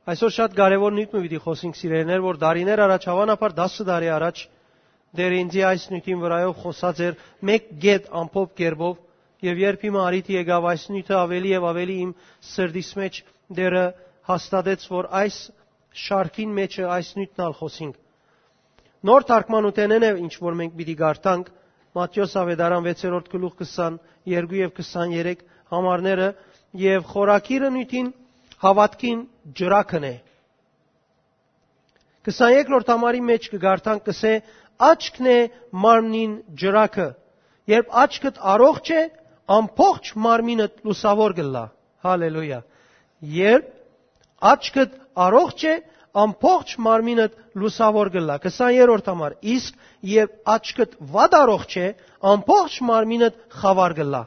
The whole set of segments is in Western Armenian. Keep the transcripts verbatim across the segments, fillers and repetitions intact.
Այսօր շատ կարեւոր նիւթ մը պիտի խօսենք, սիրելիներ, որ տարիներ առաջ, հաւանաբար դասը տարի առաջ, Տէրը ինծի այս նիւթին վրայով խօսած էր մէկ կետ ամփոփ կերպով, եւ երբ հիմա առիթը եկաւ այս նիւթը ավելի եւ ավելի իմ սրտիս մէջ, Տէրը հաստատեց, որ այս շարքին մէջը այս նիւթն ալ խօսինք։ Նոր թարգմանութենէն է, ինչ որ մենք պիտի կարդանք, Մատթէոս Աւետարան վեցերորդ գլուխ քսան երկու եւ քսան երեք համարները, եւ խորագիրը նիւթին հաւատքին ջրակն է։ Քսաներկրորդ համարի մէջ կը կարդանք, կսէ. «Աչքն է մարմնին ջրակը։ Երբ աչքդ առողջ է, ամբողջ մարմինդ լուսաւոր կ'ըլլայ»։ Հալելույա։ Երբ աչքդ առողջ է, ամբողջ մարմինդ լուսաւոր կ'ըլլայ։ Քսաներորդ համար. «Իսկ երբ աչքդ վատ առողջ է, ամբողջ մարմինդ խաւար կ'ըլլայ»։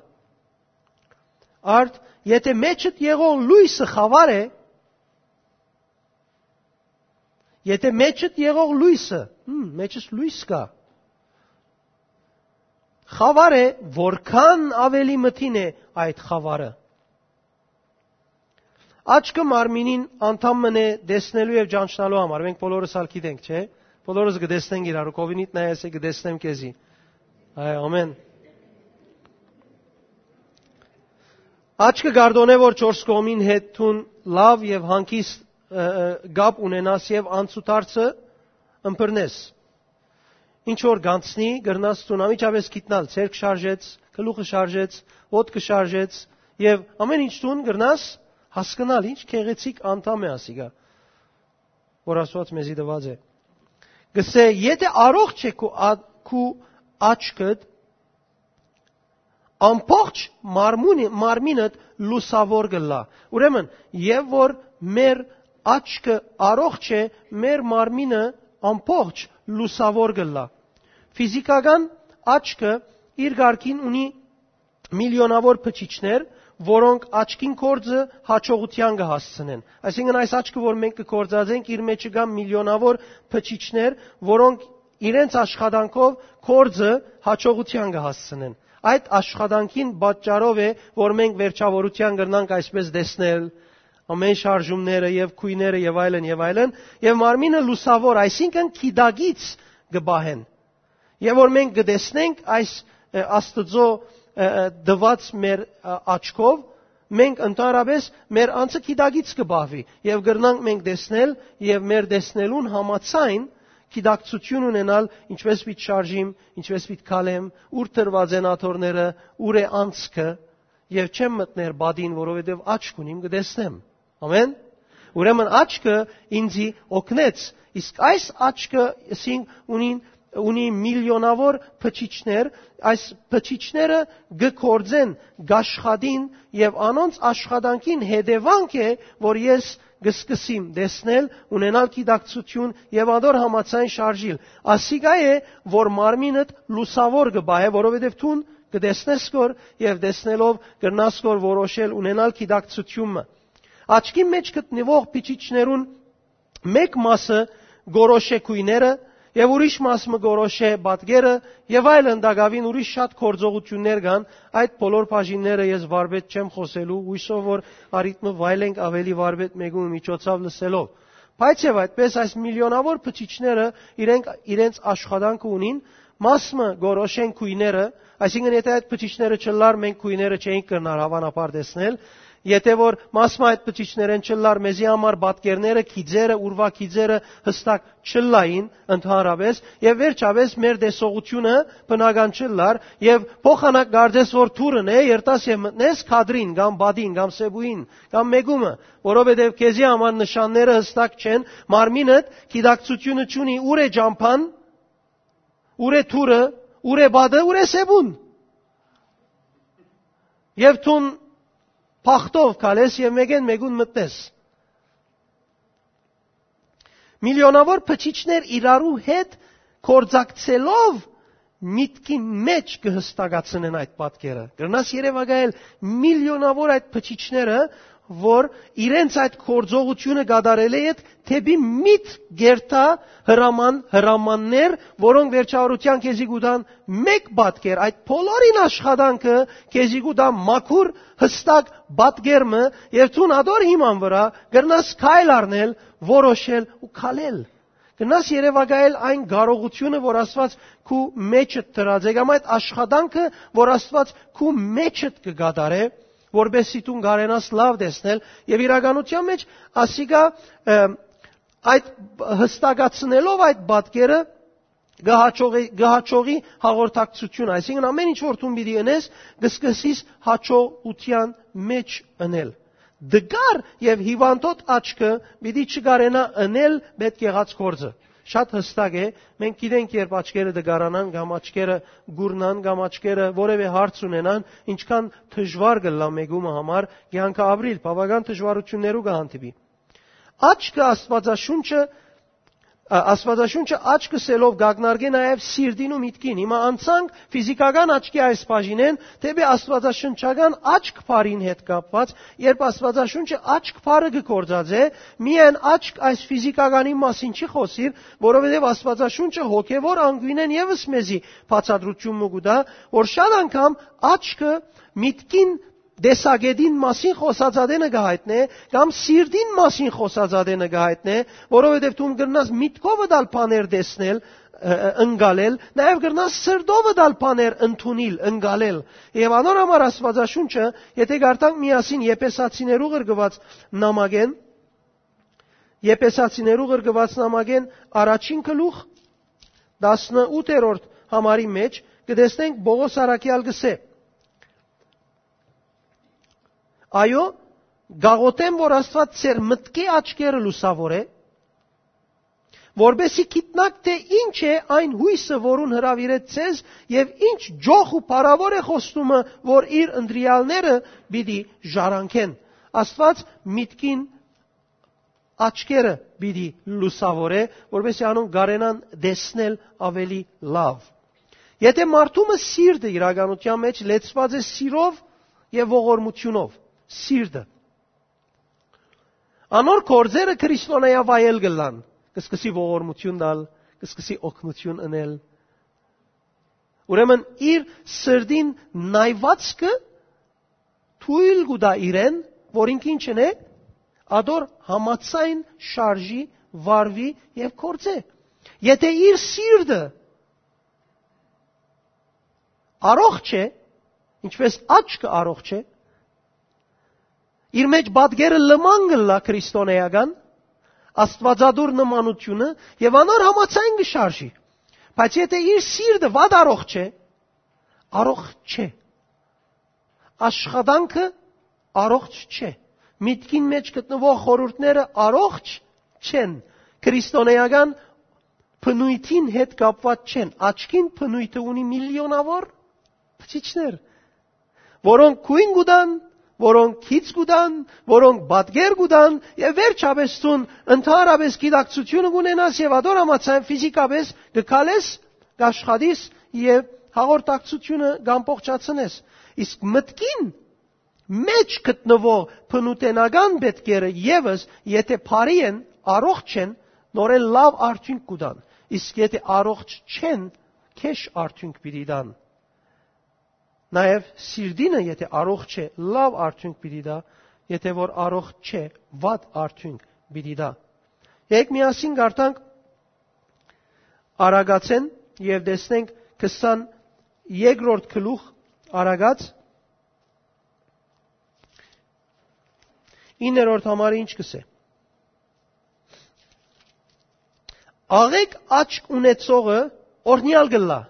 Արդ, եթէ մեջդ եղող լոյսը խաւար է, եթէ մեջդ եղող լոյսը, հմ, մեջս լոյս կայ, խաւար է, որքան ավելի մթին է այդ խաւարը։ Աչքը մարմինին անդամ մըն է տեսնելու եւ ճանչնալու համար։ Մենք բոլորս ալ գիտենք, չէ՞։ Բոլորս կը տեսնենք իրարու, կովինիդ նայես է, կը տեսնեմ քեզի։ Այ, ամեն։ Աչքը գարդոնէ, որ չորս կողմին հետ դուն լաւ եւ հանգիստ, ը, ը, կապ ունենաս եւ անցուդարձը ըմբռնես։ Ինչ որ գանցնի, կրնաս դուն անմիջապէս գիտնալ, ձեռք շարժեց, գլուխը շարժեց, ոտքը շարժեց, եւ ամեն ինչ դուն կրնաս հասկնալ, ինչ գեղեցիկ անդամ է ասիկա, որ Աստուած մեզի տուած է։ Կսէ, եթէ առողջ է քու ա-, քու աչքդ, ամբողջ մարմունի-, մարմինդ լուսաւոր կ'ըլլայ։ Ուրեմն, եւ որ մեր աչքը առողջ է, մեր մարմինը ամբողջ լուսաւոր կ'ըլլայ։ Ֆիզիքական աչքը իր կարգին ունի միլիոնաւոր բջիջներ, որոնք աչքին գործը յաջողութեան կը հասցնեն։ Այսինքն, այս աչքը, որ մենք կը գործածենք, իր մէջը կան միլիոնաւոր բջիջներ, որոնք իրենց աշխատանքով գործը յաջողութեան կը հասցնեն։ Այդ աշխատանքին պատճառով է, որ մենք վերջավորութեան կրնանք այսպես տեսնել ամեն շարժումները եւ գոյները եւ այլն եւ այլն, եւ մարմինը լուսաւոր, այսինքն՝ գիտակից կը պահեն։ Եւ որ մենք կը տեսնենք այս, ը, Աստուծոյ, ը, ը, տուած մեր, ը, աչքով, մենք ընդհանրապէս մեր անձը գիտակից կը պահուի եւ կրնանք մենք տեսնել եւ մեր տեսնելուն համաձայն գիտակցութիւն ունենալ, ինչպես պիտի շարժիմ, ինչպես պիտի քալեմ, ուր դրուած են աթոռները, ուր է անցքը, եւ չեմ մտներ պատին, որովհետեւ աչք ունիմ, կը տեսնեմ։ Ամեն։ Ուրեմն աչքը ինձի օգնեց, իսկ այս աչքը, ասինք, ունին, ունի միլիոնաւոր բջիջներ, այս բջիջները կը գործեն, կաշխատին եւ անոնց աշխատանքին հետեւանք է, որ ես կը սկսեմ տեսնել, ունենալ գիտակցութիւն եւ ադոր համաձայն շարժիլ։ Ասիկա է, որ մարմինդ լուսաւոր կը պահէ, որովհետեւ դուն կը տեսնես կոր եւ տեսնելով կրնաս կոր որոշել, ունենալ գիտակցութիւնը։ Աչքի մէջ գտնուող բջիջներուն մէկ մասը կորոշէ գոյները եւ ուրիշ մաս մը կորոշէ պատկերը եւ այլն, տակաւին ուրիշ շատ գործողութիւններ կան, այդ բոլոր բաժինները ես վարպետ չեմ խօսելու, հույսով որ առիթ մը վայելենք ավելի վարպետ մեկու միջոցով լսելով։ Բայց եւ այդպես այս միլիոնաւոր բջիջները իրենք իրենց աշխատանքը ունին, մաս մը կորոշեն գոյները, այսինքն՝ եթե այդ բջիջները չլար, մենք գոյները չէինք կրնար հաւանաբար տեսնել, եթե որ մաս մը այդ բջիջներէն չլար, մեզի համար պատկերները, գիծերը, ուրվագիծերը հստակ չլային ընդհանրապես, եւ վերջապես մեր տեսողությունը բնական չլար, եւ փոխանակ կարծես որ թուրն է, երթաս եւ մտնես քադրին, կամ պատին, կամ սեպուին, կամ մեկումը, որովհետեւ քեզի համար նշանները հստակ չեն, մարմինդ գիտակցությունը չունի, ուր է ճամփան, ուր է թուրը, ուր է պատը, ուր է սեպուն։ Եւ դուն բախտով քալես եւ մեկեն մեկուն մտնես։ Միլիոնաւոր բջիջներ իրարու հետ գործակցելով միտքին մէջ կը հստակացնեն այդ պատկերը։ Կրնաս երեւակայել միլիոնաւոր այդ բջիջները, որ իրենց այդ գործողութիւնը կատարելէ յետ դէպի միտ կերթայ հրաման, հրամաններ, որոնք վերջավորութեան քեզի կու տան մէկ պատկեր, այդ բոլորին աշխատանքը քեզի կու տայ մաքուր, յստակ պատկեր մը, եւ դուն ատոր հիման վրայ կրնաս քայլ առնել, որոշել ու քալել։ Կրնաս երեւակայել այն կարողութիւնը, որ Աստուած քու մեջդ դրած է, կամ այդ աշխատանքը, որ Աստուած քու մեջդ կը կատարէ, որպեսզի դուն կարենաս լաւ տեսնել, եւ իրականութեան մէջ ասիկա, ը, այդ յստակացնելով այդ պատկերը, կը հաջողի, կը հաջողի հաղորդակցություն, այսինքն ամեն ինչ որ դուն պիտի ընես, կը սկսես հաջողութեան մէջ ընել։ Դգար եւ հիվանդոտ աչքը պիտի չկարենայ ընել պետք եղած գործը։ Շատ յստակ է, մենք գիտենք, երբ աչքերը դգարանան կամ աչքերը կուրնան կամ աչքերը որևէ հարց ունենան, ինչքան դժուար կ'ըլլայ մեկումը համար կեանքը ապրիլ, բաւական դժուարութիւններու կը հանդիպի։ Աչքը Աստուածաշունչը, ա, Աստուածաշունչը աչք ըսելով կ'ակնարկէ նաեւ սիրտին ու միտքին։ Հիմա անցանք ֆիզիկական աչքի այս բաժինէն դէպի աստուածաշնչական աչք բառին հետ կապուած, երբ Աստուածաշունչը աչք բառը կը գործածէ, միայն աչք այս ֆիզիկականի մասին չի խօսիր, որովհետեւ Աստուածաշունչը հոգեւոր անկիւնէն եւս մեզի բացատրութիւն մը կու տայ, որ շատ անգամ աչքը միտքին տեսակետին մասին խօսած ատենը կը յայտնէ, կամ սիրտին մասին խօսած ատենը կը յայտնէ, որովհետեւ դու կրնաս միտքովդ ալ բաներ տեսնել, ը, ը, ընկալել, նաեւ կրնաս սրտովդ ալ բաներ ընդունիլ, ընկալել։ Եւ անոր համար Աստուածաշունչը, եթե կարդանք միասին Եփեսացիներու ղրկուած նամակէն, Եփեսացիներու ղրկուած նամակէն առաջին գլուխ, տասնութերորդ համարի մէջ, կը տեսնենք Պողոս առաքեալ կ'ըսէ. «Այո, կաղոթեմ, որ Աստուած ձեր մտքի աչքերը լուսաւորէ, որպեսզի գիտնաք, թէ ինչ է այն յոյսը, որուն հրաւիրեց ձեզ, եւ ինչ ջոխ ու փառաւոր է խոստումը, որ իր ընտրեալները պիտի ժառանգեն»։ Աստուած միտքին աչքերը պիտի լուսաւորէ, որպեսզի անոնք կարենան տեսնել աւելի լաւ։ Եթե մարդու մը սիրտը իրականութեան մէջ լեցուած է սիրով եւ ողորմութիւնով, սիրտը, անոր գործերը քրիստոնեայ վայել կ'ըլլան, կը սկսի ողորմութիւն տալ, կը սկսի օգնութիւն ընել։ Ուրեմն իր սրտին նայվածքը թոյլ կու տայ իրեն, որ ինք ինչ ընէ, ադոր համաձայն շարժի, վարուի եւ գործէ։ Եթե իր սիրտը առողջ է, ինչպես աչքը առողջ է, իր մէջ պատկերը լման կ'ըլլայ քրիստոնեական, աստուածատուր նմանութիւնը, եւ անոր համաձայն կը շարժի։ Բայց եթե իր սիրտը վատ առողջ է, առողջ չէ, աշխատանքը առողջ չէ, միտքին մէջ գտնուող խորհուրդները առողջ չեն, քրիստոնեական բնույթին հետ կապված չեն, աչքին բնույթը ունի միլիոնաւոր բջիջներ, որոնք գոյն կու տան, որոնք գիծ կու տան, որոնք պատկեր կու տան, եւ վերջապէս դուն ընդհանրապէս գիտակցութիւնը կունենաս եւ ադոր համաձայն ֆիզիկապէս կը քալես, կ'աշխատիս եւ հաղորդակցութիւնը կ'ամբողջացնես։ Իսկ մտքին մէջ գտնուող բնութենական պետքերը եւս, եթե բարի են, առողջ են, նորեն լաւ արդիւնք կու տան, իսկ եթե առողջ չեն, գէշ արդիւնք պիտի տան։ Նաեւ սիրտինը, եթե առողջ է, լաւ արդիւնք պիտի տայ, եթե որ առողջ չէ, վատ արդիւնք պիտի տայ։ Եկ միասին կարդանք Արագացէն եւ տեսնենք քսան երկրորդ գլուխ Արագած, իններորդ համարը ինչ կ'ըսէ. «Աղեկ աչք ունեցողը օրհնեալ կ'ըլլայ»։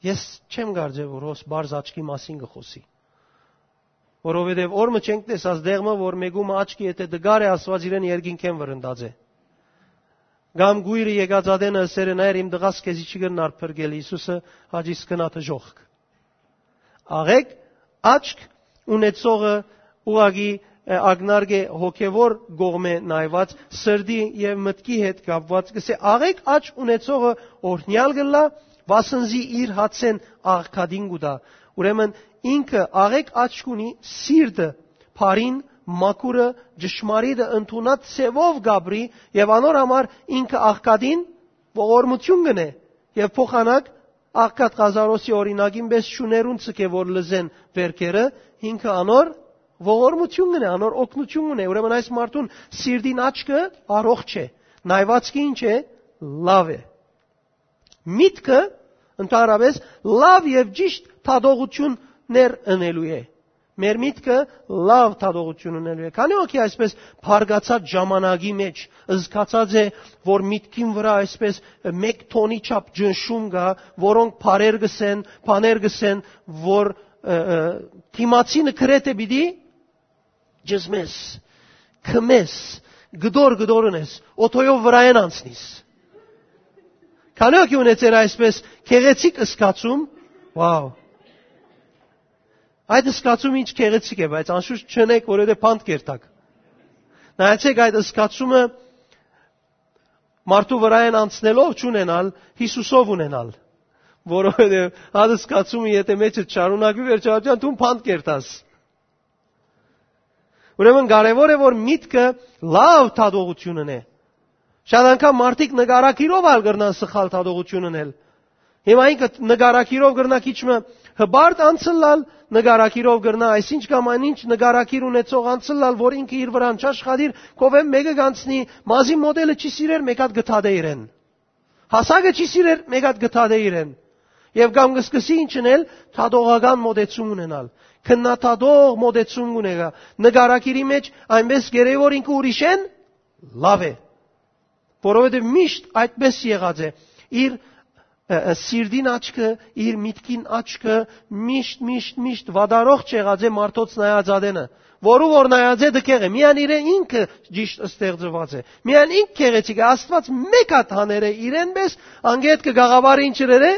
Ես չեմ կարծեր, որ հոս բարձ աչքի մասին կը խօսի, որովհետեւ օր մը չենք տեսած դեղմը, որ մեկումը աչքի եթե դգար է, Աստուած իրեն երկինքէն վրընդած է։ Կամ գույրը եկած ատենը ըսեր է. «Նայր, իմ տղաս քեզի չի կրնար փրկել, Յիսուսը հաճիս կնա դժոխք»։ Աղեկ աչք ունեցողը ուղղակի, ը, ակնարկ է հոգևոր կողմէ նայված, սրտի եւ մտքի հետ կապված, կ'ըսէ. «Աղեկ աչք ունեցողը օրհնեալ կ'ըլլայ, վասնզի իր հացէն աղքատին կու տայ»։ Ուրեմն ինքը աղեկ աչք ունի, սիրտը բարին, մաքուրը, ճշմարիտը ընդունած ձեւով կապրի եւ անոր համար ինքը աղքատին ողորմություն կ'ընէ եւ փոխանակ աղքատ Ղազարոսի օրինակին պէս շուներուն ցկէ որ լզեն վերքերը, ինքը անոր ողորմություն կ'ընէ, անոր օգնություն կ'ընէ։ Ուրեմն այս մարդուն սիրտին աչքը առողջ է, նայվածքը ինչ է, լաւ է։ Միտքը ընդհանրապես լաւ եւ ճիշտ դատողություններ ընելու է։ Մեր միտքը լաւ դատողություն ընելու է։ Քանի՞ հոգի այսպես բարգացած ժամանակի մեջ զգացած է, որ միտքին վրա այսպես մեկ թոնի չափ ճնշում կայ, որոնք բառեր կ'ըսեն, բաներ կ'ըսեն, որ, ը, ը, դիմացինը գրեթէ պիտի ճզմես, քմես, գդոր-գդոր ընես, օթոյով վրայէն անցնիս։ Քանի՞ հոգի ունեցեր այսպես գեղեցիկ զգացում, վաու։ Այդ զգացումը ինչ գեղեցիկ է, բայց անշուշտ չունեք, որովհետեւ բանտ կերտաք։ Նայեցեք, այդ զգացումը մարդու վրայէն անցնելով չունենալ, Յիսուսով ունենալ, որովհետեւ այդ զգացումը եթե մեջդ շարունակուի, վերջաբան դուն բանտ կերտաս։ Ուրեմն կարեւոր է, որ միտքը լաւ դատողություն ընէ։ Շատ անգամ մարդիկ նկարագիրով ալ կրնան սխալ դատողություն ընել։ Հիմա ինքը նկարագիրով կրնայ քիչ մը հպարտ անցլալ, նկարագիրով կրնայ այսինչ կամ այնինչ նկարագիր ունեցող անցլալ, որ ինքը իր վրան չաշխատիր, քովէն մէկը կանցնի, մազի մոդելը չի սիրեր, մէկ հատ կը դատէ իրեն։ Հասակը չի սիրեր, մէկ հատ կը դատէ իրեն։ Եւ կամ կը սկսի ինչ ընել, դատողական մոտեցում ունենալ։ Քննադատող մոտեցում ունենա։ Նկարագիրի մեջ այնպես գերեւոր ինքը ուրիշէն լաւ է, որովհետեւ միշտ այդպես եղած է։ Իր, ը, ը, սիրտին աչքը, իր միտքին աչքը միշտ, միշտ, միշտ վատառողջ եղած է մարդոց նայած ատենը, որու որ նայած է դքեղ է։ Միան իրեն ինքը ճիշտ ստեղծված է։ Միան ինք գեղեցիկ է։ Աստված մէկ հատ հաներ է իրեն պես, անգետ կը գաղավարը ինչ ըրեր է,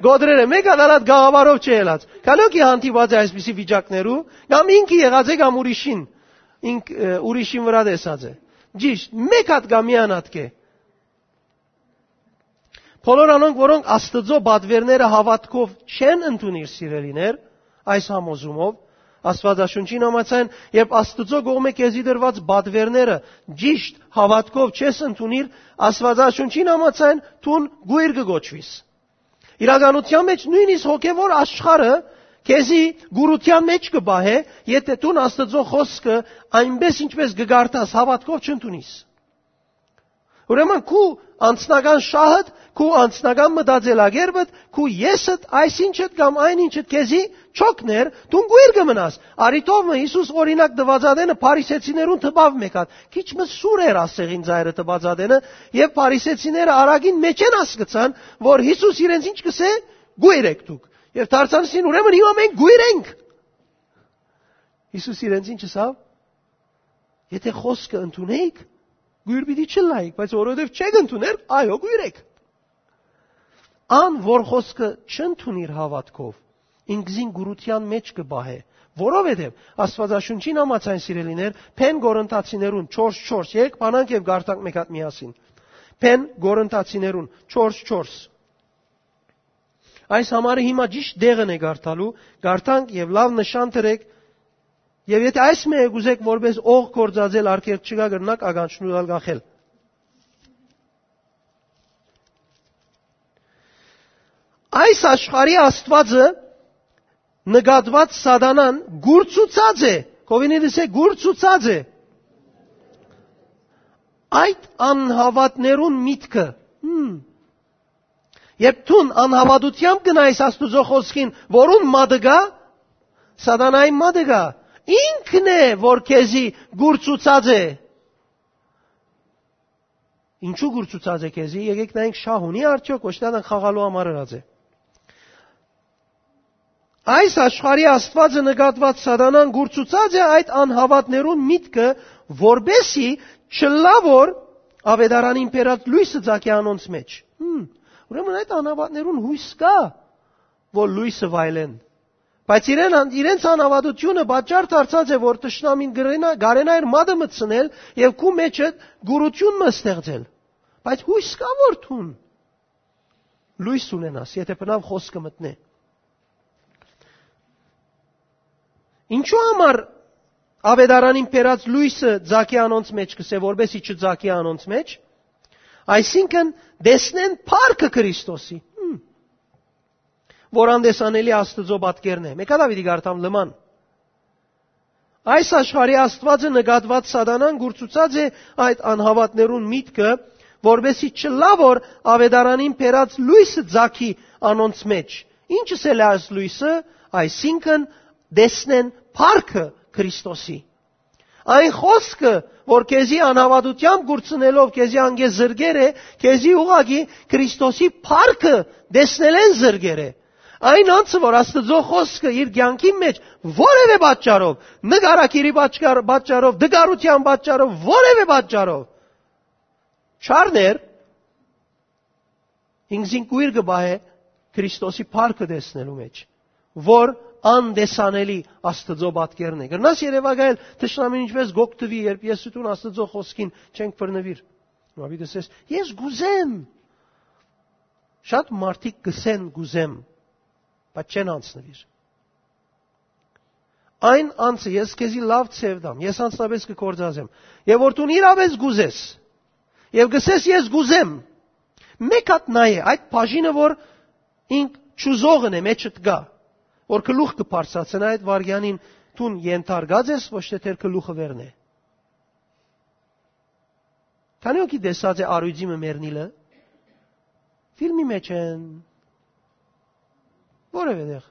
գոդրեր է։ Մէկ հատ ալ այդ գաղավարով չի ելած։ Քանի՞ հոգի հանդիպած է այսպիսի վիճակներու, կամ ինքը եղած է, կամ ուրիշին, ինք, ը, ուրիշին վրա տեսած է։ Ճիշտ, մէկ հատ կամ միան հատ կ'ե։ Բոլոր անոնք, որոնք Աստուծոյ պատուէրները հաւատքով չեն ընդունիր, սիրելիներ, այս համոզումով, Աստուածաշունչին համաձայն, երբ Աստուծոյ կողմէ քեզի տրուած պատուէրները ճիշտ հաւատքով չես ընդունիր, Աստուածաշունչին համաձայն, դուն կոյր կը կոչուիս։ Իրականութեան մեջ նոյնիսկ հոգեւոր աշխարհը քեզի կուրութեան մեջ կը պահէ, եթէ դուն Աստուծոյ խօսքը այնպես, ինչպես կը կարդաս, հաւատքով չընդունիս։ Ուրեմն քու անձնական շահդ, քու անձնական մտածելակերպդ, քու եսդ, այսինչդ կամ այնինչդ քեզի չօգներ, դուն կոյր կը մնաս։ Արի թող մը Յիսուս օրինակ տուած ատենը փարիսեցիներուն տպաւ մէկ հատ։ Քիչ մը սուր էր ասեղին ծայրը տուած ատենը, եւ փարիսեցիները արագին մեջեն հասկցան, որ Յիսուս իրենց ինչ կ'ըսէ, կոյր էք դուք։ Եւ դարձան սին, ուրեմն հիմա մենք կոյր ենք։ Յիսուս իրենց ինչ ըսաւ։ Եթէ խօսքը ընդունէիք, կոյր պիտի չըլլայիք, բայց որովհետեւ չեք ընդուներ, այո, կոյր էք։ Ան, որ խօսքը չընդունիր հաւատքով, ինքզին կուրութեան մեջ կը պահէ, որովհետեւ Աստուածաշունչին համաձայն, սիրելիներ, Բեն Կորինթացիներուն չորս չորս, երեք բանանք եւ կարդանք մէկ հատ միասին։ Բեն Կորինթացիներուն չորս չորս։ Այս համարը հիմա ճիշտ տեղն է կարդալու, կարդանք եւ լաւ նշան դրեք, եւ եթէ այս մը կ'ուզէք որպես օղ գործածել արգելք չկայ, կրնաք ականջներուդ ալ կախել։ Այս աշխարհի Աստուածը նկատուած սատանան կուրցուցած է, կովինի դիսե կուրցուցած է այդ անհավատներուն միտքը։ Հմ։ Երբ դուն անհավատութեամբ գնայս Աստուծոյ խօսքին, որուն մատը կայ, սատանային մատը կայ, ինքն է, որ քեզի կուրցուցած է։ Ինչու կուրցուցած է քեզի, եկեք նայենք, շահ ունի արդյոք, ոչ թե ան խաղալու համար ըրած է։ Այս աշխարհի Աստուածը նկատուած սատանան կուրցուցած է այդ անհավատներուն միտքը, որպեսի չլա որ ավետարանին բերած լոյսը ծագէ անոնց մեջ։ Հմ, ուրեմն այդ անհավատներուն յոյս կայ, որ լոյսը վայելեն։ Բայց իրեն, իրենց անհավատությունը պատճառ դարձած է, որ թշնամին կրենա, կարենայր մատը մտցնել եւ քու մեջը գուրություն մը ստեղծել։ Բայց յոյս կայ որ դուն լոյս ունենաս, եթէ բնավ խօսքը մտնէ։ Ինչու համար Աւետարանին բերած լոյսը ձագի անոնց մէջ կ'ըսէ, որպէս զի չձագի անոնց մէջ, այսինքն՝ տեսնեն փառքը Քրիստոսի, հմ, որ անտեսանելի Աստուծոյ պատկերն է։ Մէկա Դաւիթի կարդամ լման։ Այս աշխարհի Աստուածը նկատուած Սատանան կուրցուցած է այդ անհաւատներուն միտքը, որպէս զի չլայ որ աւետարանին բերած լոյսը ձագի անոնց մէջ։ Ի՞նչ ըսել է այս լոյսը, այսինքն՝ տեսնեն փառքը Քրիստոսի։ Այն խօսքը, որ քեզի անհաւատութեամբ կուրցնելով քեզի անկէ զրկեր է, քեզի ուղղակի Քրիստոսի փառքը տեսնելէն զրկեր է։ Այն անձը, որ Աստուծոյ խօսքը իր կեանքին մէջ որեւէ պատճառով, նկարագիրի պատճառ-, պատճառով, դգարութեան պատճառով, որեւէ պատճառով չառներ, ինքզին կոյր կը պահէ Քրիստոսի փառքը տեսնելու մէջ, որ անտեսանելի Աստուծոյ պատկերն է։ Կրնաս երեւակայել թշնամին ինչպէս կ'օգտուի, երբ ես ու դուն Աստուծոյ խօսքին չենք բռնուիր։ Մա պիտի ասես, «Ես կ'ուզեմ»։ Շատ մարդիկ կ'ըսեն, «Կ'ուզեմ», բայց չեն անցնուիր։ Այն անձը, ես քեզի լաւ ձեւ տամ, ես անձնապէս կը գործածեմ, եւ որ դուն իրապէս կ'ուզես, եւ կ'ըսես, «Ես կ'ուզեմ», մէկ հատ նայ է, այդ բաժինը, որ ինք չուզողն է, մէջդ կայ, որ գլուխ կը բարձրացնայ այդ վայրկեանին, դուն ենթարկած ես, ոչ թէ դեր գլուխը վերնէ։ Քանի՞ հոգի տեսած է առիւծի մը մեռնիլը։ Ֆիլմի մեջ են։ Որևէ տեղ։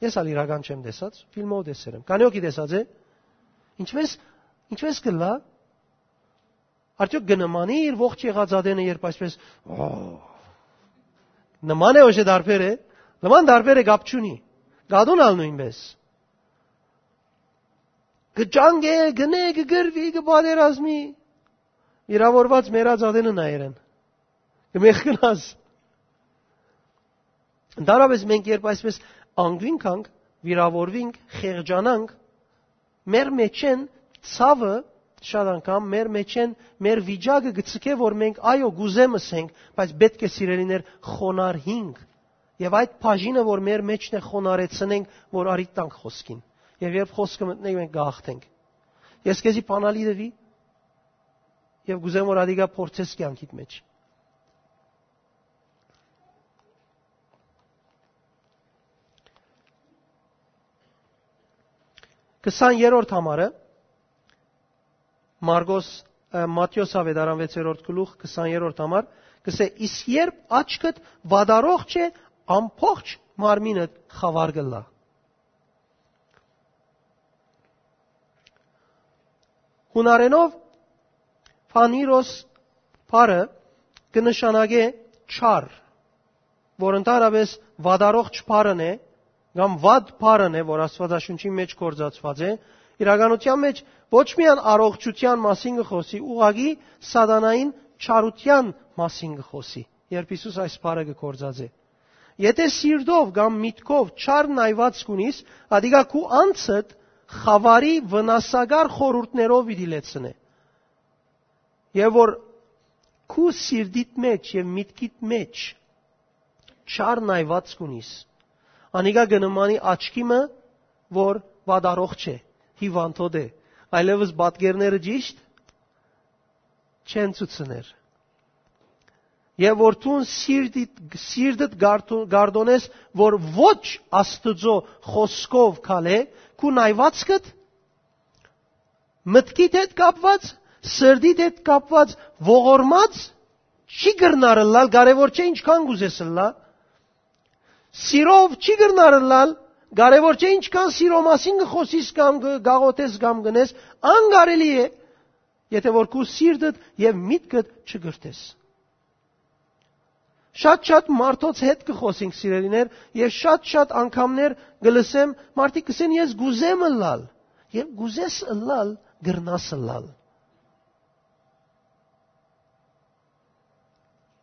Ես ալ իրական չեմ տեսած, ֆիլմով տեսեր եմ։ Քանի՞ հոգի տեսած է։ Ինչպես, ինչպես կլա։ Արդյոք կը նմանի իր ողջ եղած ատենը, երբ այսպես, օ, նման է, ոչ է, տարբեր է։ Նման, տարբեր է, կապ չունի։ Կատուն ալ նոյնպես։ Կը ճանկէ, կնէ, կը գրվի, կը պատերազմի։ Վիրավորված մեռած ատենը նայեր են։ Կը մեղքնաս։ Ընդհանրապես մենք երբ այսպես անգին գանք, վիրավորվինք, խեղճանանք, մեր մեջ են ցաւը, շատ անգամ մեր մեջ են, մեր վիճակը կը ցկէ, որ մենք, այո, կ'ուզեմ ըսենք, բայց պէտք է, սիրելիներ, խոնարհինք։ Եւ այդ բաժինը, որ մեր մեջն է, խոնարհեցնենք, որ արիդ տանք խօսքին։ Եւ երբ խօսքը մտնենք, մենք կ'աղթենք։ Ես քեզի բանալի տուի, եւ կ'ուզեմ, որ ադիկա փորձես կեանքիդ մեջ։ Քսաներորդ համարը, Մարկոս, ը, Մատթէոս աւետարան վեցերորդ գլուխ, քսաներորդ համար, կ'ըսէ, «Իսկ երբ աչքդ վատառողջ է, ամբողջ մարմինդ խաւար կ'ըլլայ»։ Յունարէնով Փանիրոս բառը կը նշանակէ չար, որ ընդհանրապես վատառողջ բառն է, կամ վատ բառն է, որ Աստուածաշունչին մեջ գործածուած է, իրականության մեջ ոչ միայն առողջութեան մասին կը խօսի, ուղղակի սատանային չարութեան մասին կը խօսի, երբ Յիսուս այս բառը կը գործածէ։ Եթէ սիրտով կամ միտքով չար նայուածք ունիս, ադիկա քու անձդ խաւարի վնասակար խորհուրդներով պիտի լեցնէ։ Եւ որ քու սիրտիդ մեջ եւ միտքիդ մեջ չար նայուածք ունիս, անիկա կը նմանի աչքի մը, որ վատառողջ է, հիվանդոտ է, այլեւս պատկերները ճիշդ չեն ցուցներ։ Եւ որ դուն սիրտիդ, սիրտդ գարդո-, գարդոնես, որ ոչ Աստուծոյ խօսքով քալէ, քու նայուածքդ մտքիդ հետ կապված, սրտիդ հետ կապված, ողորմած չի կրնար ըլլալ, կարեւոր չէ ինչքան կ'ուզես ըլլա։ Սիրով չի կրնար ըլլալ, կարեւոր չէ ինչքան սիրո մասին կը խօսիս կամ կը գաղութես կամ կ'ընես, անկարելի է, եթէ որ քու սիրտդ եւ միտքդ չկրթես։ Շատ-շատ մարդոց հետ կը խօսենք, սիրելիներ, եւ շատ-շատ անգամներ կը լսեմ, մարդիկ կ'ըսեն, «Ես կ'ուզեմ ըլլալ»։ Եւ կ'ուզես ըլլալ, կրնաս ըլլալ։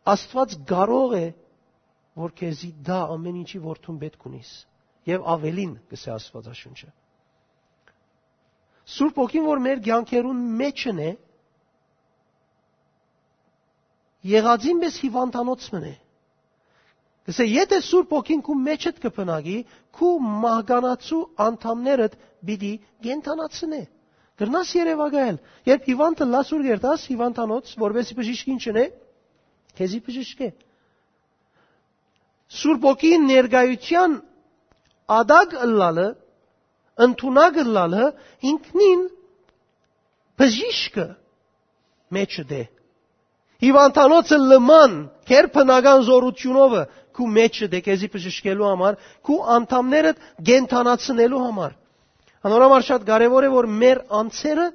Աստուած կարող է, որ քեզի տայ ամէն ինչի, որ դուն պէտք ունիս։ Եւ աւելին, կ'ըսէ Աստուածաշունչը։ Սուրբ Հոգին, որ մեր կեանքերուն մեջն է, եղածին պէս հիվանդանոց մըն է։ Ասէ, եթէ Սուրբ Հոգին քու մեջդ կը բնակի, քու մահկանացու անդամներդ պիտի կենդանացնէ։ Կրնաս երեւակայել։ Երբ հիվանդ ըլլաս, ո՞ւր կերտաս հիվանդանոց, որպեսզի բժիշկին չնէ, քեզի բժիշկէ։ Սուրբ Հոգին ներկայութեան ատակ ըլլալը, ընդունակ ըլլալը, ինքնին բժիշկը մեջդ է։ Հիվանդանոցը լման, քեր բնական զօրութիւնովը քու մեջդ է, քեզի բժշկելու համար, քու անդամներդ կենդանացնելու համար։ Անոր համար շատ կարեւոր է, որ մեր անձերը,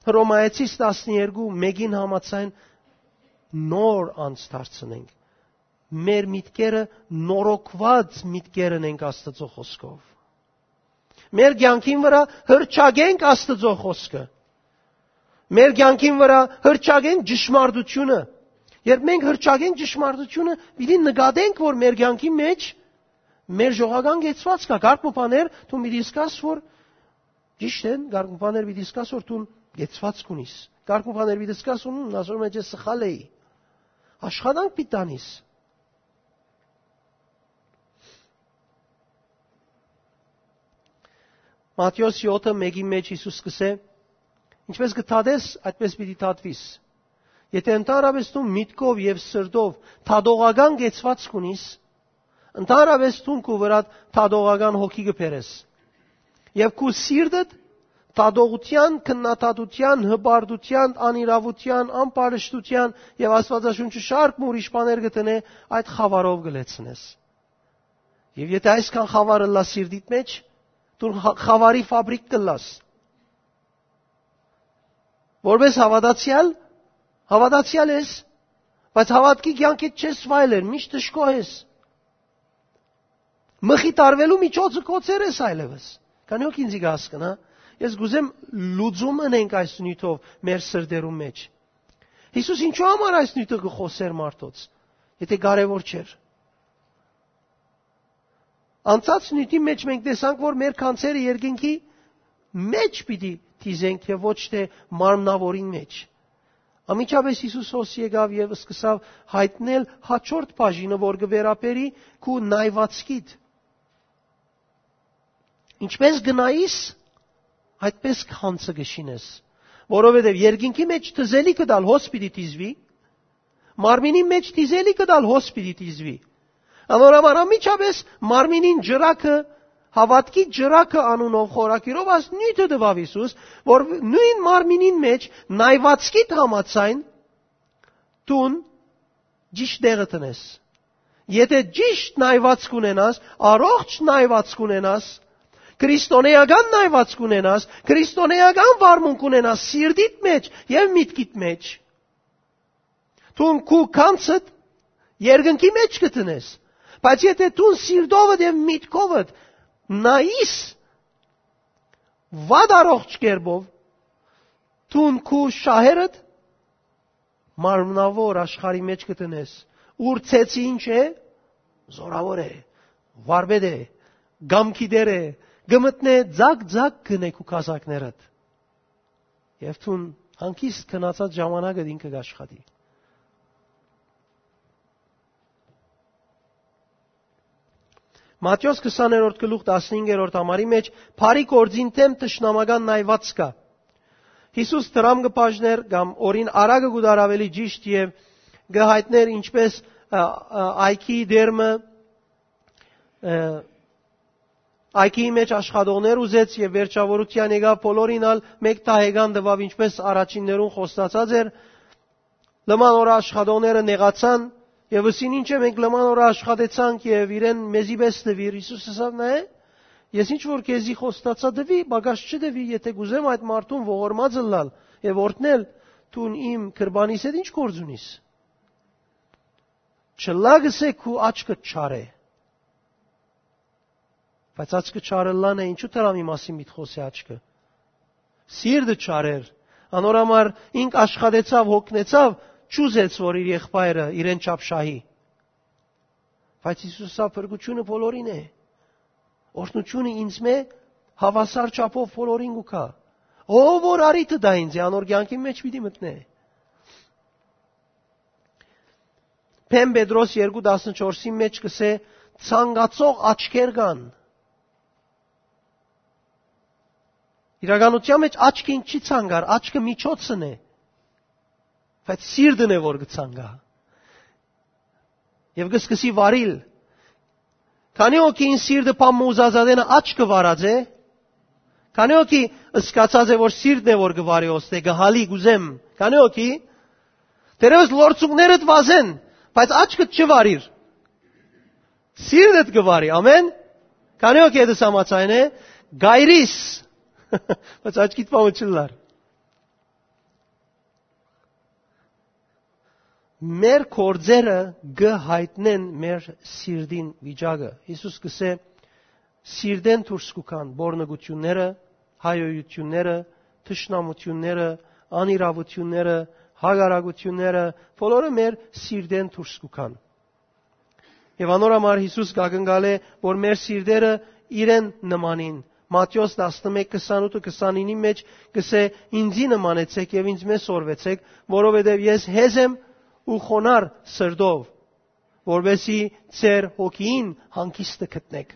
Հռոմայեցիս տասներկու մէկին համաձայն, նոր անձ դարձնենք։ Մեր միտքերը նորոգուած միտքեր ընենք Աստուծոյ խօսքով։ Մեր կեանքին վրայ հռչակենք Աստուծոյ խօսքը։ Մեր կեանքին վրայ հռչակենք ճշմարտութիւնը։ Երբ մենք հռչակենք ճշմարտութիւնը, պիտի նկատենք, որ մեր կեանքի մեջ մեր ժողական կեցուած կայ։ Կարգ մը բաներ դուն պիտի զգաս, որ ճիշդ են, կարգ մը բաներ պիտի զգաս, որ դուն կեցուած կունիս։ Կարգ մը բաներ պիտի զգաս, որ, «Հմ, ասոր մեջ ես սխալ էի»։ Աշխատանք պիտի տանիս։ Մատթէոս յոթը մէկին մեջ Յիսուս կ'ըսէ. «Ինչպես կը դատես, այդպես պիտի դատուիս»։ Եթէ ընդհանրապես դու միտքով եւ սրտով դատողական կեցուած կունիս, ընդհանրապես դուն քու վրադ դատողական հոգի կը բերես։ Եւ քու սիրտդ դատողութեան, քննադատութեան, հպարտութեան, անիրաւութեան, ամբարշտութեան եւ Աստուածաշունչը շարք մը ուրիշ բաներ կը դնէ, այդ խաւարով կը լեցնես։ Եւ եթէ այսքան խաւար ըլլայ սիրտիդ մեջ, դու խա-, խաւարի ֆաբրիկ կ'ըլլաս։ Որպես հաւատացեալ, հաւատացեալ ես, բայց հաւատքի կեանքիդ չես վայելեր, միշտ դժգոհ ես։ Մխիթարվելու միջոցը կոչեր ես այլեւս։ Քանի՞ հոգ ինձի կը հասկնայ, ես կ'ուզեմ լուծում ընենք այս նիւթով մեր սրտերուն մեջ։ Յիսուս ինչու համար այս նիւթը կը խօսէր մարդոց, եթէ կարեւոր չէր։ Անցած նիւթի մեջ մենք տեսանք, որ մեր գանձերը երկնքի մեջ պիտի դիզենք եւ ոչ թէ մարմնաւորին մեջ։ Անմիջապէս Յիսուս հոս եկաւ եւ սկսաւ յայտնել հաջորդ բաժինը, որ կը վերաբերի քու նայվածքիդ։ Ինչպես կը նայիս, այդպես գանձը կը շինես, որովհետեւ երկնքի մեջ դիզելիքը դալ հոս պիտի դիզուի, մարմինին մեջ դիզելիքը դալ հոս պիտի դիզուի։ Անոր համար անմիջապէս մարմինին ջրակը, հաւատքի ջրակը անունով խորագիրով այս նիւթը տուաւ Յիսուս, որ նոյն մարմինին մեջ նայվածքիդ համաձայն դուն ճիշդ տեղը տնես։ Եթէ ճիշդ նայվածք ունենաս, առողջ նայվածք ունենաս, քրիստոնեական նայվածք ունենաս, քրիստոնեական վարմունք ունենաս սիրտիդ մեջ եւ միտքիդ մեջ, դուն քու գանձդ երկնքի մեջ կը տնես, բայց եթէ դուն սիրտովդ եւ միտքովդ նայիս վատ առողջ կերպով, դուն քու շահերդ մարմնաւոր աշխարհի մեջ կը տնես, ուր ծեծը ինչ է, զորաւոր է, վարպետ է, կամքի տեր է, կը մտնէ ձակ-ձակ գնե քու կազակներդ։ Եւ դուն հանգիստ քնացած ժամանակդ ինքը կ'աշխատի։ Մատթէոս քսաներորդ գլուխ տասնհինգերորդ համարի մեջ բարի գործին դէմ թշնամական նայված կայ։ Յիսուս դրամ կը բաժներ կամ օրին արագը կու դար ավելի ճիշտ եւ կը յայտներ ինչպես, ա, ա, այգի դերմը, ա, այգիի մեջ աշխատողներ ուզեց եւ վերջավորության եկաւ բոլորին ալ մեկ դահեկան տուաւ, ինչպես առաջիններուն խոստացած էր։ Լման օրը աշխատողները նեղացան եւ ըսին. «Ինչ է, մենք լման օրը աշխատեցանք եւ իրեն մեզի պէս տուիր»։ Յիսուս ըսաւ. «Նայէ, ես ինչ որ քեզի խոստացայ, տուի, պակաս չտուի, եթէ կ'ուզեմ այդ մարդուն ողորմած ըլլալ եւ օրհնել, դուն իմ քրբանիս հետ ի՞նչ գործ ունիս։ Չլա, կ'ըսէ, քու աչքդ չար է»։ Բայց աչքը չար ըլլան է, ինչու դրամի մասին միտք խօսի աչքը։ Սիրտը չար էր։ Անոր համար ինք աշխատեցաւ, հոգնեցաւ, չուզեց, որ իր եղբայրը իրեն չափ շահի։ Բայց Յիսուս ասաւ. «Փրկութիւնը բոլորին է։ Օրհնութիւնը ինձմէ հաւասար չափով բոլորին կու գայ։ Ով որ առիթը տայ ինձի, անոր կեանքին մեջ պիտի մտնէ»։ Բեմ Պետրոս երկու տասնչորսին մէջ կ'ըսէ. «Ցանկացող աչքեր կան»։ Իրականութեան մէջ աչքը ինչ չի ցանկար, աչքը միջոցն է, բայց սիրտն է որ կը ցանկայ։ Եւ կը սկսի վարիլ։ Քանի՞ հոգի ին սիրտը բան մը ուզած ատենը աչքը վարած է։ Քանի՞ հոգի սկացած է որ սիրտն է որ կը վարի, ոստե կը հալի, կ'ուզեմ։ Քանի՞ հոգի, դերևս լորձունքներդ վազեն, բայց աչքդ չի վարիր, սիրտդ կը վարի։ Ամեն։ Քանի՞ հոգի հետս համաձայն է, գայրիս, բայց աչքիդ պամը չլար։ Մեր գործերը կը յայտնեն մեր սիրտին վիճակը։ Յիսուս կ'ըսէ. «Սիրտէն դուրս կու գան պոռնկութիւնները, հայոյութիւնները, թշնամութիւնները, անիրաւութիւնները, հակառակութիւնները, բոլորը մեր սիրտէն դուրս կու գան»։ Եւ անոր համար Յիսուս կ'ակնկալէ որ մեր սիրտերը իրեն նմանին։ Մատթէոս տասնմէկ քսանութ ու քսանինի մէջ կ'ըսէ. «Ինծի նմանեցէք եւ ինծմէ սորվեցէք, որովհետեւ ես հեզ եմ ու խոնար սրտով, որպեսզի ձեր հոգիին հանգիստը գտնէք»։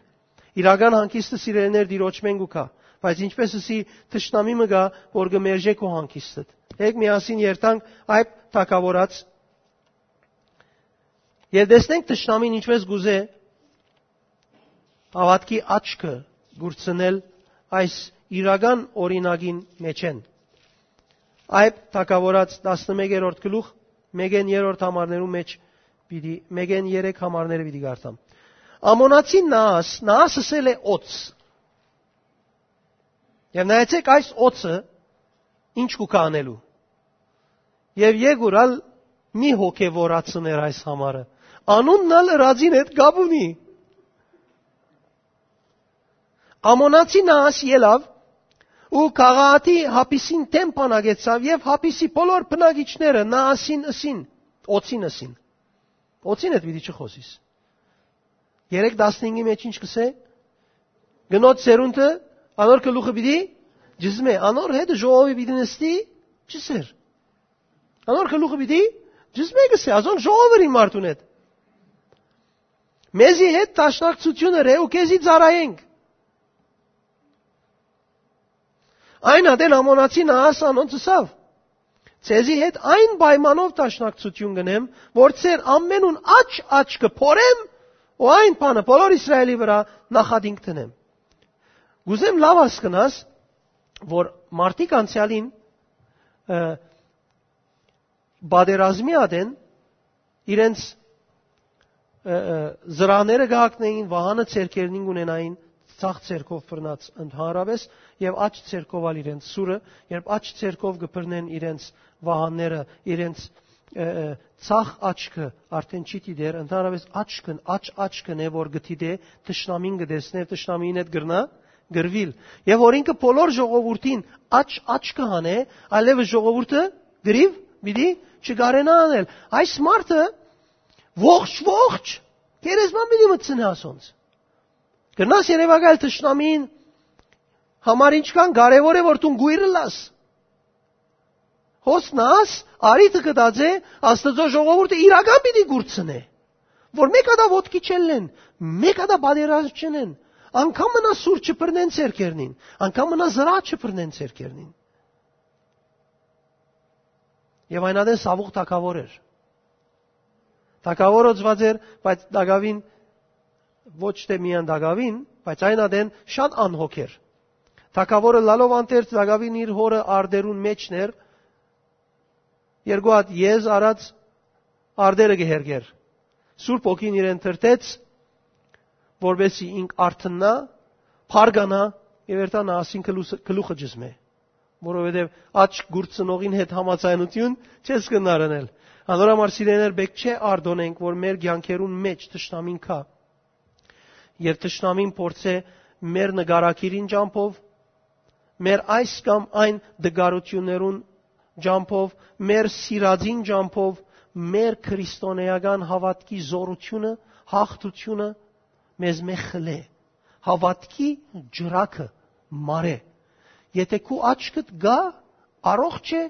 Իրական հանգիստը, սիրելիներ, Տիրոջմէն կու գայ, բայց ինչպէս ըսի, թշնամի մը կայ որ կը մերժէ քու հանգիստդ։ Հեկ միասին երթանք այդ թագաւորած եւ տեսնենք թշնամին ինչպես կ'ուզէ հաւատքի աչքը կուրցնել այս իրական օրինակին մէջէն։ Այդ թագաւորած տասնմեկերորդ գլուխ, մեկէն երրորդ համարներու մէջ պիտի, մեկէն երեք համարները պիտի կարդամ։ Ամոնացի Նաաս, Նաաս ըսել է օծ։ Եւ նայեցեք այս օծը ինչ կու գայ անելու։ Եւ եկուր ալ մի հոգեվորացներ այս համարը։ Անունն ալ ըրածին հետ կապ ունի։ Ամոնացի Նաաս ելաւ ու քաղաքի Հապիսին դէմ բանակեցաւ եւ Հապիսի բոլոր բնակիչները Նաասին ըսին, օծին ըսին։ Օծին հետ պիտի չխօսիս։ Երեք տասնհինգի մեջ ինչ կ'ըսէ։ Կնոջ սերունդը անոր գլուխը պիտի ջզմէ, անոր հետ ժողովի պիտի նստի ջսեր։ Անոր գլուխը պիտի ջզմէ, կ'ըսէ, ազոն ժողովը ըրին մարդուն հետ։ Մեզի հետ դաշնակցութիւն ըրէ ու քեզի ծառայենք։ Այն ատեն Ամոնացի Նաաս անոնց ըսաւ. «Ձեզի հետ այն պայմանով դաշնակցութիւն կ'ընեմ, որ ձեր ամենուն աջ աչքը փորեմ ու այն բանը բոլոր Իսրայէլի վրայ նախատինք դնեմ»։ Կ'ուզեմ լաւ հասկնաս որ մարդիկ անցեալին, ը, պատերազմի ատեն իրենց, ը, ը, զրահները կը հագնէին, վահանը ձեռքերնին կ'ունենային, ձախ ձեռքով բռնած ընդհանրապէս եւ աջ ձեռքով ալ իրենց սուրը, երբ աջ ձեռքով կը բռնեն իրենց վահանները, իրենց, ը, ը, ձախ աչքը արդեն չի դիտեր, ընդհանրապէս աչքն, աջ աչքն է որ կը դիտէ, թշնամին կը տեսնէ, թշնամին հետ կրնայ կռուիլ։ Եւ որ ինքը բոլոր ժողովուրդին աջ աչքը հանէ, այլեւս ժողովուրդը կռիւ պիտի չկարենայ անել։ Այս մարդը ողջ, ողջ գերեզման պիտի մտցնէ ասոնց։ Կրնաս երեւակայել թշնամին համար ինչքան կարեւոր է որ դուն կոյր ըլլաս։ Հոս Նաաս արիթը կտած է Աստուծոյ ժողովուրդը իրական պիտի կուրցնէ, որ մէկ հատա ոտքի չելլեն, մէկ հատա պատերազմ չընեն, անգամ մնա սուր չբռնեն ձեռքերնին, անգամ մնա զրահ չբռնեն ձեռքերնին։ Եւ այն ատեն Սաւուղ թագաւոր էր։ Թագաւոր օծված էր, բայց տակաւին, ոչ թե միայն տակաւին, բայց այն ատեն շատ անհոգ էր։ Թագաւորը լալով անթերց տակաւին իր հորը արտերուն մէջն էր, երկու հատ եզ արած արտերը կը հերկեր։ Սուրբ Հոգին իրեն թրթեց, որպեսզի ինք արթննայ, փառկանայ եւ երթա Նաասին գլուխը, գլուխը ջզմէ, որովհետեւ աջ կուրցնողին հետ համաձայնութիւն չես կրնար ընել։ Անոր համար, սիրելիներ, պէտք չէ արտօնենք որ մեր կեանքերուն մէջ թշնամին գայ եւ թշնամին փորձէ մեր նկարագիրին ճամբով, մեր այս կամ այն դգարութիւններուն ճամբով, մեր սիրածին ճամբով, մեր քրիստոնէական հաւատքի զօրութիւնը, հաղթութիւնը մեզմէ խլէ։ Հաւատքի ջրակը մարէ։ Եթէ քու աչքդ գայ, առողջ է,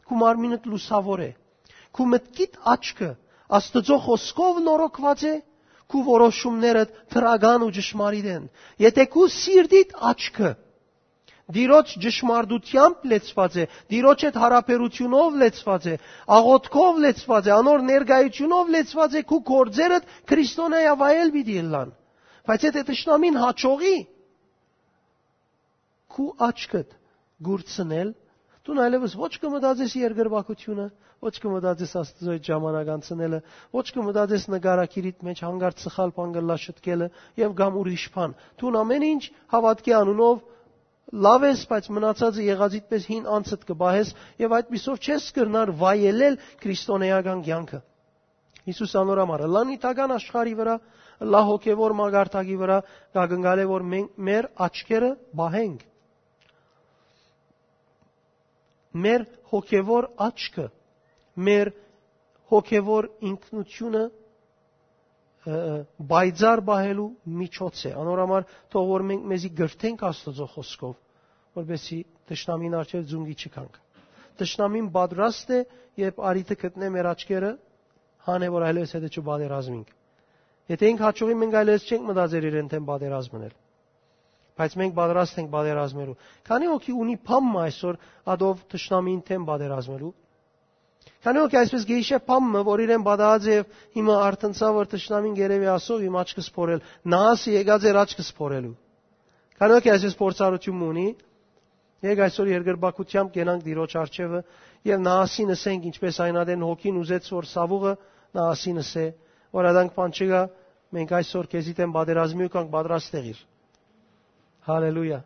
քու մարմինդ լուսաւոր է։ Քու մտքիդ աչքը Աստուծոյ խօսքով նորոգուած է, քու որոշումներդ դրական ու ճշմարիտ են։ Եթէ քու սիրտիդ աչքը Տիրոջ ճշմարտութեամբ լեցուած է, Տիրոջ հետ յարաբերութիւնով լեցուած է, աղօթքով լեցուած է, անոր ներկայութիւնով լեցուած է, քու գործերդ քրիստոնեայ վայել պիտի ըլլան։ Բայց եթէ թշնամին հաջողի քու աչքդ կուրցնել, դուն այլեւս ոչ կը մտածես երկրպագութիւնը, ոչ կը մտածես Աստուծոյ հետ ժամանակ անցնելը, ոչ կը մտածես նկարագիրիդ մէջ հանկարծ սխալ բան կը ըլլայ շտկելը եւ կամ ուրիշ բան։ Դուն ամէն ինչ հաւատքի անունով լաւ ես, բայց մնացածը եղածիդ պէս հին անցդ կը պահես եւ այդպիսով չես կրնար վայելել քրիստոնեական կեանքը։ Յիսուս անոր համար ըլլայ նիւթական աշխարհի վրայ, ըլլայ հոգեւոր մակարդակի վրայ, կակնկալէ որ մենք, մեր աչքերը պահենք, մեր հոգեւոր աչքը, մեր հոգեւոր ինքնութիւնը, ը, պայծառ պահելու միջոց է։ Անոր համար թող որ մենք մեզի կրթենք Աստուծոյ խօսքով, որպեսզի թշնամին առջեւ զունկի չգանք։ Թշնամին պատրաստ է, երբ առիթը գտնէ մեր աչքերը, հանէ որ այլեւս հետը չպատերազմենք։ Եթէ ինք հաջողի, մենք այլեւս չենք մտածեր իրեն դէմ պատերազմնել։ Բայց մենք պատրաստ ենք պատերազմելու։ Քանի՞ հոգի ունի բան մը այսօր ատով թշնամին դէմ պատերազմելու։ Քանի՞ հոգի այսպես գեհիշե բան մը, որ իրեն պատահած է եւ հիմա արթնցաւ որ թշնամին գերեւի ասող իմ աչքը սփորել։ Նահասը եկած էր աչքը սփորելու։ Քանի՞ հոգի այսպես փորձառութիւն մը ունի։ Եկ այսօր երկրպագութեամբ կենանք Տիրոջ առջեւը եւ նահասին ըսենք, ինչպես այն ատեն հոգին ուզեց որ սաւուղը նահասին ըսե, որ ադանք բան չկայ, մենք այսօր քեզի դէմ պատերազմի ու կանք պատրաստ եղիր։ Հալելույա։